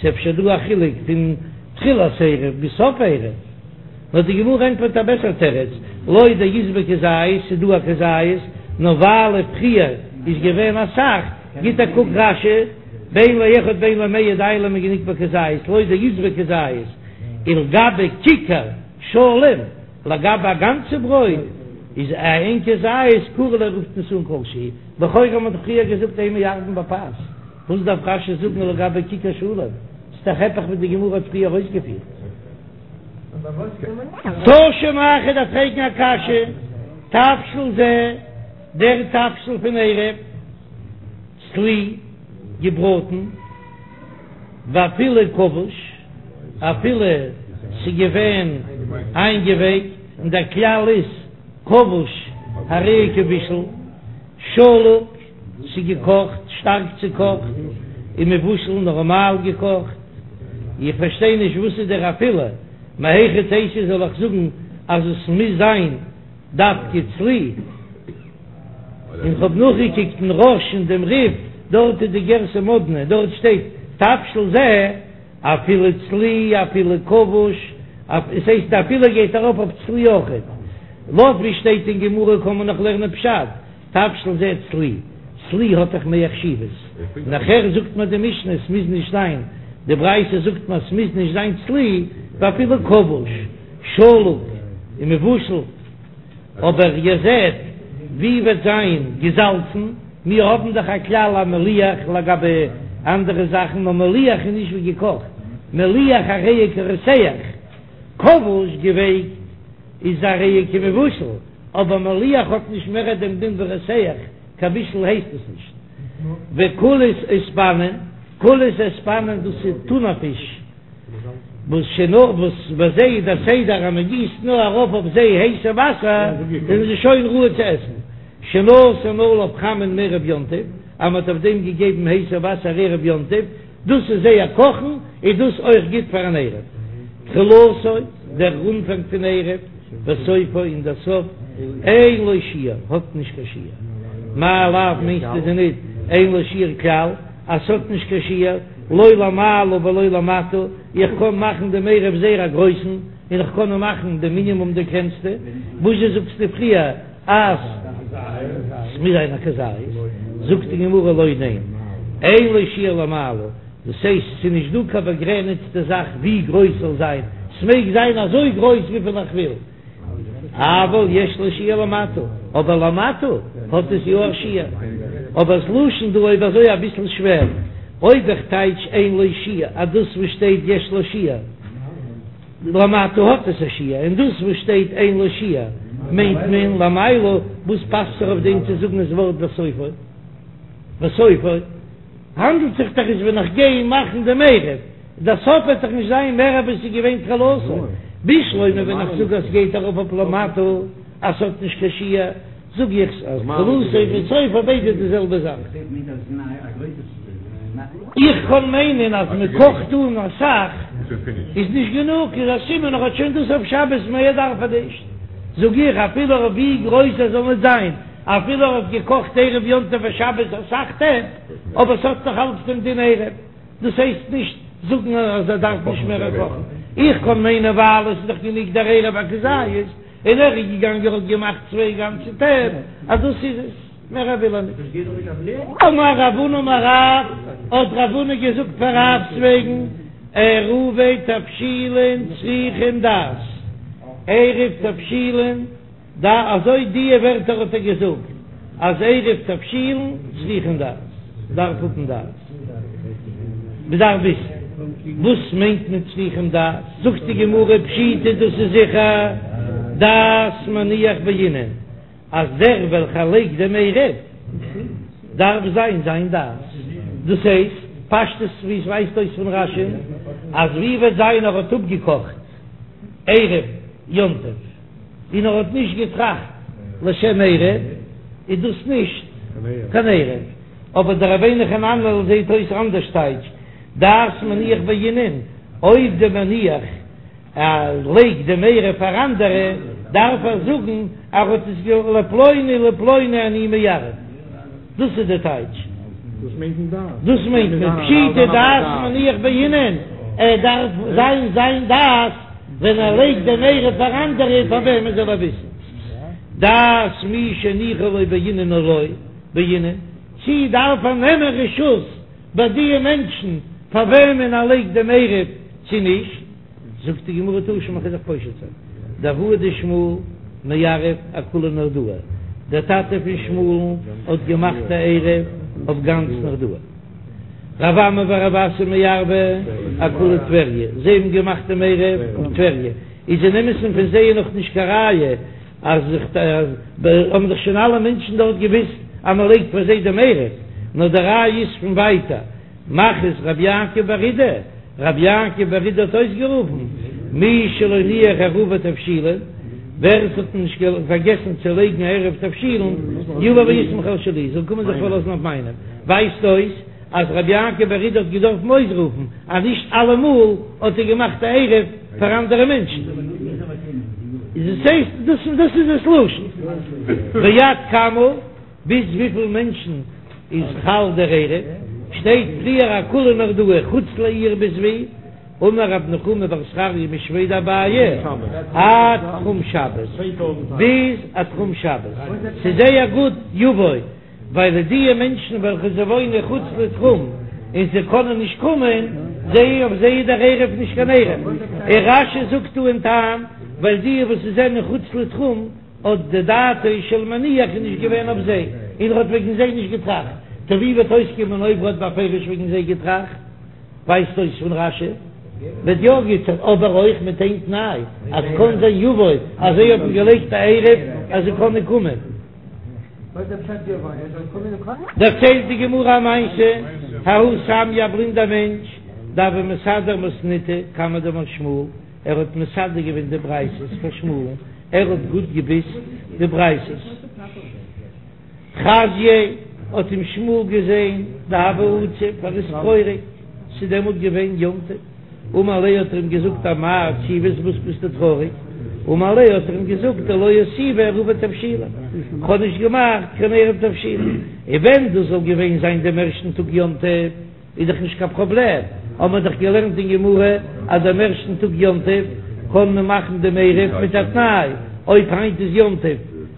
ס'איז אפשר דא א חילוק פון תחילת עירוב ביז סוף עירוב. נאר די גמרא ענטפערט א בעסער תירוץ, לא דאית ביה כזית, ס'איז דא א כזית, נאר ווייל פריער איז געווען אסאך, גיט א קוק רש"י, בין לאחד בין למאה די לן איז גענוג בכזית, לא דאית ביה כזית, ולגבי כיכר שלם, לגבי א גאנצע ברויט, איז איין כזית קרי לה רופט מען עס אן כל שהוא, לכאורה האט מען דאך פריער געזאגט אין מערבין בפת, וואס דארף רש"י זאגן לגבי כיכר שלם, ס'איז דאך היפך ווי די גמרא האט פריער אויסגעפירט. תא שמע איך דארף פרעגן א קשיא, תבשיל זה, דער תבשיל פון עירוב, צלי, געבראטן, ואפילו כבוש, אפילו ס'געווען איינגעווייקט, און דער כלל איז כבוש הרי הוא כמבושל, שלוק, ס'געקאכט, שטארק צוקאכט, און מבושל, נארמאל געקאכט. איך פארשטיי נישט וואס איז דער אפילו, מהיכי תיתי זאל איך זאגן אז עס מוז זיין דווקא צלי? און כ'האב נאכגעקוקט אין רא"ש און דעם רי"ף. דארט איז די גירסא מאדנע, דארט שטייט תבשיל זה אפילו צלי אפילו כבוש, עס הייסט אפילו גייט ארויף אויף צלי אויכעט, לויט ווי שטייט אין גמרא קען מען נאך לערנען פשט, תבשיל זה צלי, צלי האט דאך מער חשיבות, נאכער זאגט מיר די משנה עס מוז נישט זיין, די ברייתא זאגט מיר עס מוז נישט זיין צלי, ואפילו כבוש, שלוק און מבושל, אבער איר זעט ווי וועט זיין געזאלצן, מיר האבן דאך א כלל אז מליח לגבי אנדערע זאכן, נאר מליח איז נישט ווי געקאכט, מליח הרי הוא כרותח, כבוש געווייקט איז הרי הוא כמבושל. אבער מליח האט נישט מער דעם דין ווי רותח, קיין בישול הייסט עס נישט. וקולייס אוספנין, קולייס אוספנין דאס איז טונא פיש, וואס שנא וואס ביי זיי איז דער סדר אז מען גיסט נאר ארויף אויף זיי הייסע וואסער זענען זיי שוין ראוי צו עסן, שנתן עליו חמין מערב יום טוב, אז מען האט אויף דעם געגעבן הייסע וואסער ערב יום טוב, דאס איז זייער קאכן, איז דאס אויך גוט פאר אן עירוב. תחילתו, דער אנפאנג פון עירוב, וסופו, און דער סוף, אין לו שיעור, האט נישט קיין שיעור. מאי לאו מיינסטו דען ניט, אין לו שיעור כלל, אז ס'האט נישט קיין שיעור, לא למעלה ולא למטה, איך קען מאכן דעם עירוב זייער א גרויסן, און איך קען מאכן די מינימום די קלענסטע, וואזשע זאגסטו פריער? אז ס'מוז זיין א כזית, זאגט די גמרא לא ניין, אין לו שיעור למעלה, דאס הייסט ס'איז נישט דא קיין באגרעניצטע זאך ווי גרויס ס'זאל זיין, ס'מעג זיין אזוי גרויס וויפיל איך וויל, אבל יש לו שיעור למטה, אבער למטה האט עס יא א שיעור, אבער ס'לשון דא אויב אזוי אביסל שווער, אויב איך טייטש אין לו שיעור אז דאס וואס שטייט יש לו שיעור. למטה האט עס א שיעור, און דאס וואס שטייט אין לו שיעור מיינט מען למעלה, וואס פאסט זיך אויף דעם צו זאגן עס ווארט וסופו? וסופו האנדלט זיך דאך איז ווען איך גיי מאכן דעם עירוב, דער סוף וועט דאך נישט זיין מער ווי עס איז געווען תחילתו, בשלמא ווען איך זאג אז סגייט ארויף אויף למטה אז ס'האט נישט קיין שיעור, זאג איך אז תחילתו וסופו ביידע די זעלבע זאך. איך קען מיינען אז מען קאכט אן אסאך איז נישט גענוג, איז א סימן ער האט שוין דאס אויף שבת מער דארף ער נישט, זאג איך אפילו אויף ווי גרויס ער זאל נישט זיין, אפילו ער האט געקאכט ערב יום טוב אויף שבת אסאך טעפ, אבער ס'האט נאך אלץ דעם דין עירוב, דאס הייסט נישט זאגן אז ער דארף נישט מער קאכן, איך קען מיינען ווייל עס איז דאך גענוג דער עירוב א כזית, און ער איז געגאנגען האט געמאכט צוויי גאנצע טעפ, אז דאס איז עס, מער וויל ער נישט. אמר רב הונא אמר רב, האט רב הונא געזאגט פאר רב'ס וועגן, עירובי תבשילין צריכין דעת, עירוב תבשילין, אזוי דיע ווערטער האט ער געזאגט, אז עירוב תבשילין צריכין דעת, דארף האבן דעת. מ'דארף וויסן וואס מיינט מען צריכים דעת, זאגט די גמרא פשיטא דאס איז זיכער דעת מניח בעינן, אז דער וועלכער לייגט דעם עירוב דארף זיין זיין דעת, דאס הייסט פשטות ווי עס ווייזט אויס פון רש"י אז ווי וועט זיין ער האט אפגעקאכט ערב יום טוב און ער האט נישט געטראכט לשם עירוב איז דאס נישט קיין עירוב. אבער דער רבינו חננאל זעהט אויס אנדערש טייטש דעת מניח בעינן, אויב דער מניח לייגט דעם עירוב פאר אנדערע דארף ער זאגן אז ער האט עס גע לפלוני לפלוני אני מערב, דאס איז די טייטש. דאס מיינט מען דעת. דאס מיינט מען פשיטא דעת מניח בעינן, ער דארף זיין זיין דעת ווען ער לייגט דעם עירוב פאר אנדערע פאר וועמען זאל ער וויסן דעת מי שהניחו לו בעינן או לא. בעינן, צי דארף ער נעמען רשות ביי דיע מענטשן פאר וועמען ער לייגט דעם עירוב צי נישט? זאגט די גמרא תא שמע כ'וועל דיך פושט זיין, דאבוה דשמואל מערב אכולה נהרדעא, דער טאטע פון שמואל'ן האט געמאכט א עירוב אויף גאנץ נהרדעא, רב אמי ורב אסי מערבי אכולה טבריה, זיי האבן געמאכט דעם עירוב אויף טבריה, איז אין אמת'ן פון זיי נאך נישט קיין ראיה אז האבן דאך שוין אלע מענטשן דארט געוויסט אז מען לייגט פאר זיי דעם עירוב, נאר די ראיה איז פון ווייטער, מכריז רבי יעקב בר אידי, רבי יעקב בר אידי האט אויסגערופן, מי שלא הניח עירובי תבשילין, ווער עס האט נישט פארגעסן צו לייגן עירוב תבשילין, יבא ויסמוך על שלי, זאל קומען זיך פארלאזן אויף מיינעם, ווייזט אויס אז רבי יעקב בר אידי האט געדארפן אויסרופן אז נישט אלעמאל האט ער געמאכט א עירוב פאר אנדערע מענטשן. איז עס הייסט דאס דאס איז דאס לשון. ועד כמה, ביז וויפיל מענטשן. איז חל דער עירוב, שטייט פריער אכולה נהרדעא חוץ לעיר ביז ווי? אמר רב נחומי בר זכריה משמיה דאביי עד תחום שבת, ביז א תחום שבת, ס'איז זייער גוט יבוא, ווייל די מענטשן וועלכע זיי וואוינען חוץ לתחום און זיי קענען נישט קומען, זיי אויף זיי איז דער עירוב נישט קיין עירוב, און רש"י זאגט דא אין טעם, ווייל די וואס זענען חוץ לתחום האט די דעתו של מניח איז נישט געווען אויף זיי, און ער האט וועגן זיי נישט געטראכט, טא ווי וועט אויסקומען אויב ער האט בפירוש וועגן זיי געטראכט? ווייזט אויס פון רש"י וועט יא גוט זיין, אבער אויך מיט איין תנאי, אז קאן זיין יבוא אז זיי האבן געלייגט א עירוב אז זיי קענען קומען. דערציילט די גמרא א מעשה, ההוא סמיא א בלינדער מענטש, דהוה מסדר מתניתא קמיה דמר שמואל, ער האט מסדר געווען די ברייתות פאר שמואל'ן, ער האט גוט געוויסט די ברייתות. חזייה האט אים שמואל געזען דהוה עציב, ער איז טרויעריג, ס'איז דעמאלט געווען יום טוב, אמר ליה האט ער אים געזאגט אמאי עציבת וואס ביסטו טרויעריג, אמר ליה האט ער אים געזאגט דלא אותיבי עירובי תבשילין, כ'האב נישט געמאכט קיין עירוב תבשילין, און ווען דאס זאל געווען זיין דעם ערשטן טאג יום טוב, איז דאך נישט קיין פראבלעם, האבן מיר דאך געלערנט אין גמרא אז דעם ערשטן טאג יום טוב קען מען מאכן דעם עירוב מיט א תנאי, אויב היינט איז יום טוב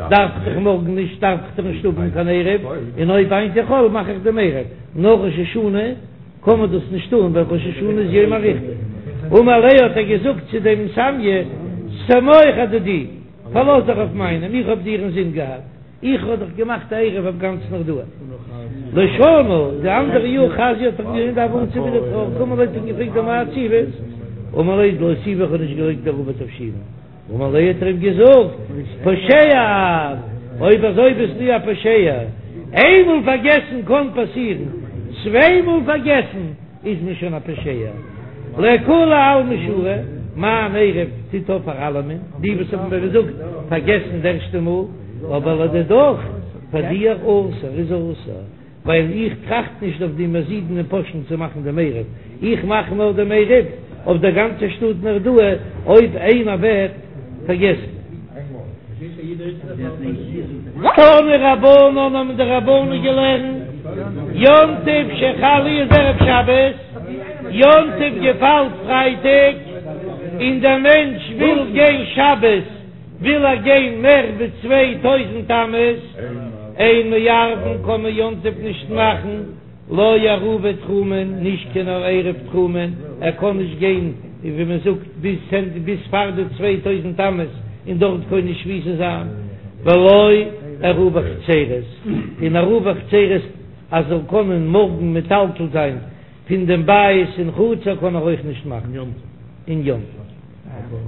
דארף איך דאך מארגן נישט דארף איך דאך נישט האבן קיין עירוב, און אויב היינט איז חול מאך איך דעם עירוב, נאר ראש השנה קען מען דאס נישט טון ווייל ראש השנה איז יומא אריכתא. אמר ליה האט ער געזאגט צו דעם סמיא, סמוך אדידי, פארלאז דיך אויף מיינעם, איך האב דיר אינזין געהאט. איך האב דאך געמאכט א עירוב אויף גאנץ נהרדעא. לשנה, די אנדערע יאר חזייה האט ער אים געזען דהוה עצב טרויעריג, אמר ליה האט אים געפרעגט אמאי עציבת, אמר ליה דלא אותיבי איך האב נישט געלייגט עירובי תבשילין, אמר ליה האט ער אים געזאגט פושע את, אויב אזוי ביסטו א פושע, איינמאל פארגעסן קען פאסירן, צוויי מאל פארגעסן איז מען שוין א פושע. לכולי עלמא שרי, מיין עירוב טוט אויף פאר אלעמען, די וואס האבן ווי געזאגט פארגעסן די ערשטע מאל, אבער לדידך, פאר דיר אסור איז אסור, ווייל איך טראכט נישט אויף די מזידין און פושעים צו מאכן דעם עירוב, איך מאך נאר דעם עירוב אויף דער גאנצער שטאט נהרדעא אויב איינער וועט פארגעסן. תנו רבנן האבן די רבנן געלערנט, יום טוב שחל להיות ערב שבת, יום טוב געפאלט פרייטאג, און דער מענטש וויל גיין שבת, וויל ער גיין מער ווי 2000 אמות, אין מערבין קען מען יום טוב נישט מאכן, לא עירובי תחומין, נישט קיין עירוב תחומין, ער קען נישט גיין ווי מען זאגט ביז צענט ביז פאר די 2000 אמות און דארט קונה שביתה זיין, ולא עירובי חצירות, און עירובי חצירות אז זאל קענען מארגן מטלטל זיין פון דעם בית אין חצר קען ער אויך נישט מאכן אין יום טוב.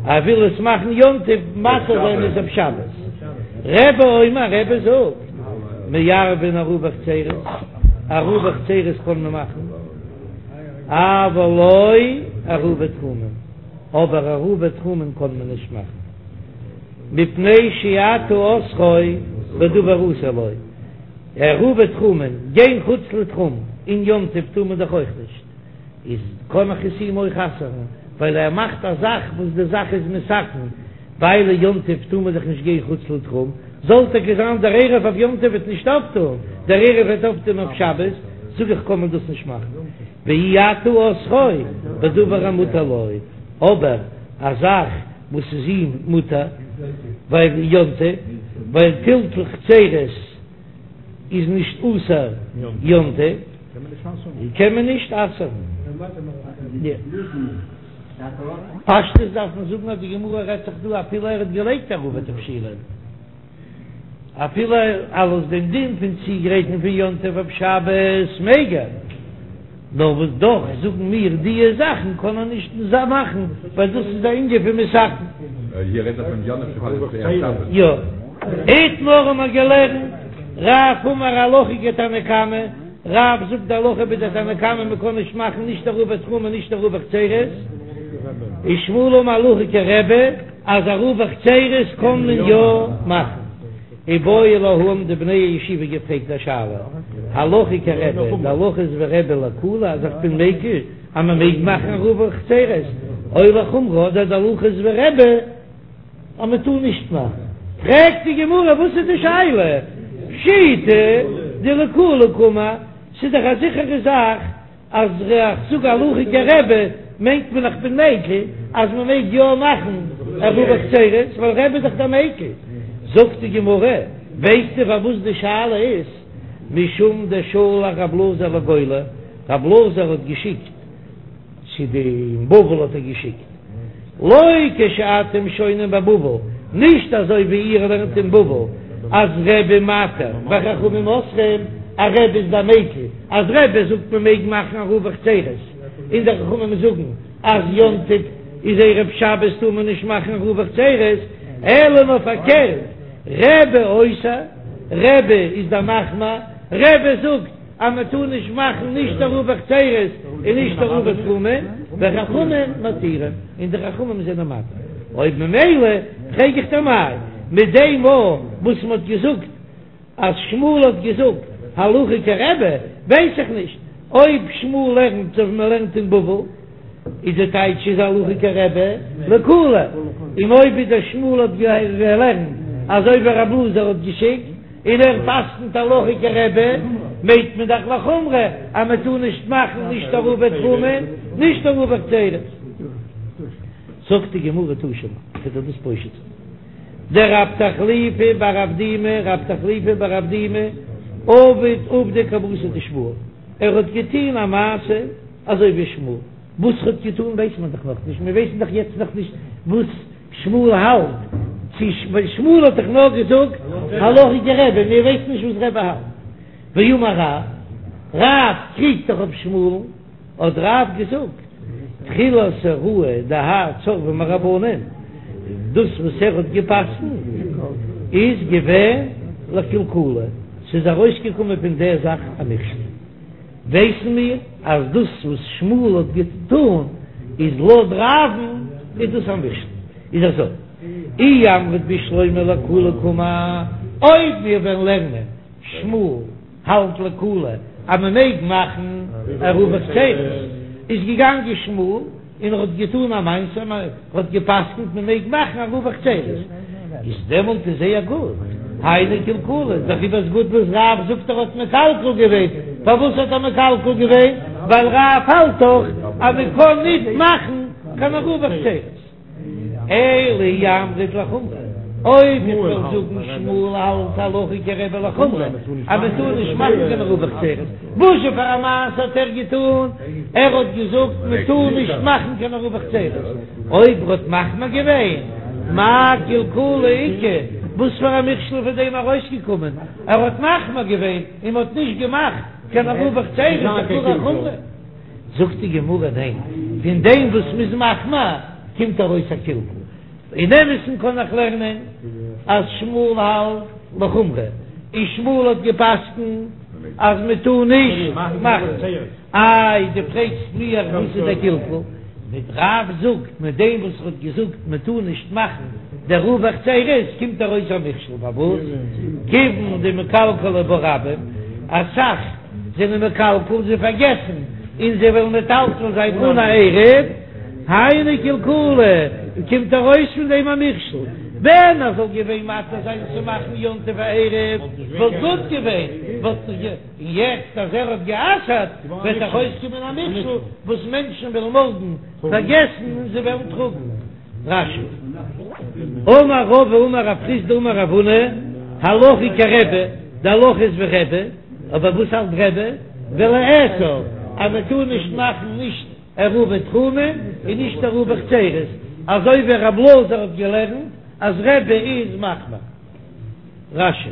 ער וויל עס מאכן יום טוב מתיר זיין עס אויף שבת. רבי אומר רבי זאגט מערבין עירובי חצירות, עירובי חצירות קען מען מאכן, אבל לא עירובי תחומין, אבער עירובי תחומין קען מען נישט מאכן, מפני שאתה אוסרו בדבר אסור לו, עירובי תחומין, גיין חוץ לתחום אין יום טוב טאר מען דאך אויך נישט. איז קען איך עס אים אויך אסר'ן, ווייל ער מאכט א זאך וואס די זאך איז מתקן, ווייל יום טוב טאר מען דאך נישט גיין חוץ לתחום, זאל טאקע זיין דער עירוב אויף יום טוב וועט נישט אויפטון, דער עירוב וועט אויפטון אויף שבת, זאג איך קען מען דאס נישט מאכן, ואי אתה אוסרו בדבר המותר לו, אבער א זאך וואס איז אים מותר, ווייל יום טוב, ווייל טלטול חצירות איז נישט אסור יום טוב. קען מען נישט אסר'ן. פשטות דארף מען זאגן אז די גמרא רעדט זיך דא אפילו ער האט געלייגט עירובי תבשילין, אפילו אלס דעם דין פון צוגרייטן פון יום טוב אויף שבת מעג ער, נאר וואס דאך זאגן מיר דיע זאכן קען ער נישט מאכן ווייל דאס איז א ענין פון מתקן. יא. איתמר האבן מיר געלערנט, רב אמר הלכה כתנא קמא, רב זאגט די הלכה ווי די תנא קמא מען קען נישט מאכן נישט עירובי תחומין נישט עירובי חצירות, ושמואל אמר הלכה כרבי אז עירובי חצירות קען מען יא מאכן. איבעיא להו האבן די בני הישיבה געפרעגט א שאלה, הלכה כרבי, די הלכה איז ווי רבי לקולא אז איך בין מקיל אז מען מעג מאכן עירובי חצירות, או לחומרא אדער די הלכה איז ווי רבי אז מען טאר נישט מאכן. פרעגט די גמרא וואס איז די שאלה? פשיטא. דלקולא קאמר, ס'איז דאך א זיכערע זאך אז איך זאג הלכה כרבי מיינט מען איך בין מיקל אז מען מעג יא מאכן עירובי חצירות ווייל רבי איז דאך דער מיקל. זאגט די גמרא, ווייסטו פארוואס די שאלה איז משום דשלח רב אלעזר לגולה, רב אלעזר האט געשיקט צו די אין בבל האט ער געשיקט לא כשאתם שונים בבבל, נישט אזוי ווי איר לערנט אין בבל אז רבי מתיר וחכמים אוסרים, אז רבי איז דער מיקל, אז רבי זאגט מען מעג מאכן עירובי חצירות, און די חכמים זאגן אז יום טוב איז ערב שבת טאר מען נישט מאכן עירובי חצירות, אלא נאר פארקערט, רבי אוסר, רבי איז דער מחמיר, רבי זאגט אז מען טאר נישט מאכן נישט עירובי חצירות און נישט עירובי תחומין, וחכמים מתירים, און די חכמים זענען מתיר. אויב ממילא פרעג איך דיר מאי, מיט דעם מאל וואס מען האט געזאגט אז שמואל האט געזאגט הלכה כרבי, ווייס איך נישט אויב שמואל לערנט אזוי ווי מען לערנט אין בבל, איז די טייטש איז הלכה כרבי לקולא, און אויב איז דער שמואל האט געלערנט אזוי ווי רב אלעזר האט געשיקט, און ער פסק'נט הלכה כרבי, מיינט מען דאך לחומרא אז מען טאר נישט מאכן נישט עירובי תחומין נישט עירובי חצירות. זאגט די גמרא תא שמע, כ'וועל דיר דאס פושט זיין. דרב תחליפא בר אבדימי, רב תחליפא בר אבדימי, עבד עובדא כוותיה דשמואל, ער האט געטון א מעשה אזוי ווי שמואל, וואס ער האט געטון ווייסט מען דאך נאכנישט, מיר ווייסן דאך יעצט נאכנישט וואס שמואל האלט, צו שמואל האט דאך נאר געזאגט הלכה כרבי, מיר ווייסן נישט וואס רבי האלט. ואמר רב, רב קריגט דאך אויף שמואל'ן, האט רב געזאגט, תחילת הוראה דהאי צורבא מרבנן, דאס וואס ער האט גע'פסק'נט איז געווען לקלקולא, ס'איז ארויסגעקומען פון דער זאך א מכשול. ווייסן מיר אז דאס וואס שמואל האט געטאן איז לויט רב'ן איז דאס א מכשול. איז אזוי, אי אמרת בשלמא לקולא קאמר, אויב מיר וועלן לערנען שמואל האלט לקולא אז מען מעג מאכן עירובי חצירות, איז געגאנגען שמואל און ער האט געטאן א מעשה, מען האט גע'פסק'נט מען מעג מאכן עירובי חצירות, איז דעמאלט איז זייער גוט, היינו קלקולא, דעריבער איז גוט וואס רב זאגט ער האט מקלקל געווען, פארוואס האט ער מקלקל געווען? ווייל רב האלט דאך אז מען קען נישט מאכן קיין עירובי חצירות. אלא אי אמרת לחומרא, אויב איך וועל זאגן שמואל האלט הלכה כרבי לחומרא אז מען טאר נישט מאכן קיין עירובי חצירות, וואס זשע פאר א מעשה האט ער געטאן? ער האט געזאגט מען טאר נישט מאכן קיין עירובי חצירות, אויב ער האט מחמיר געווען, מאי קלקולא איכא, וואס פאר א מכשול איז פון דעם ארויסגעקומען? ער האט מחמיר געווען און מען האט נישט געמאכט קיין עירובי חצירות, איז דאך גאר א חומרא. זאגט די גמרא ניין, פון דעם וואס מ'איז מחמיר קומט ארויס א קלקול. אין אמת'ן קען איך לערנען אז שמואל האלט לחומרא, און שמואל האט גע'פסק'נט אז מ'טאר נישט מאכן. איי דו פרעגסט מיר וואס איז דער קלקול? מיט רב זאגט מיט דעם וואס ער האט געזאגט מ'טאר נישט מאכן די עירובי חצירות קומט ארויס א מכשול פארוואס? כיוון דמקלקלי בה רבים, אסאך זענען מקלקל, זיי פארגעסן און זיי וועלן מטלטל זיין אן א עירוב, היינו קלקולא, קומט ארויס פון דעם א מכשול, ווען ער זאל געווען מתיר זיין צו מאכן יום טוב א עירוב וואלט גוט געווען, וואלט און יעצט אז ער האט גע'אסר'ט וועט ארויסקומען א מכשול וואס מענטשן וועלן מארגן פארגעסן און זיי וועלן טראגן. רש"י. אמר רבא אמר רב חסדא אמר רב הונא, הלכה כרבי, די הלכה איז ווי רבי, אבער וואס האלט רבי? ולאסור, אז מען טאר נישט מאכן נישט עירובי תחומין און נישט עירובי חצירות, אזוי ווי רב אלעזר האט געלערנט אז רבי איז מחמיר. רש"י.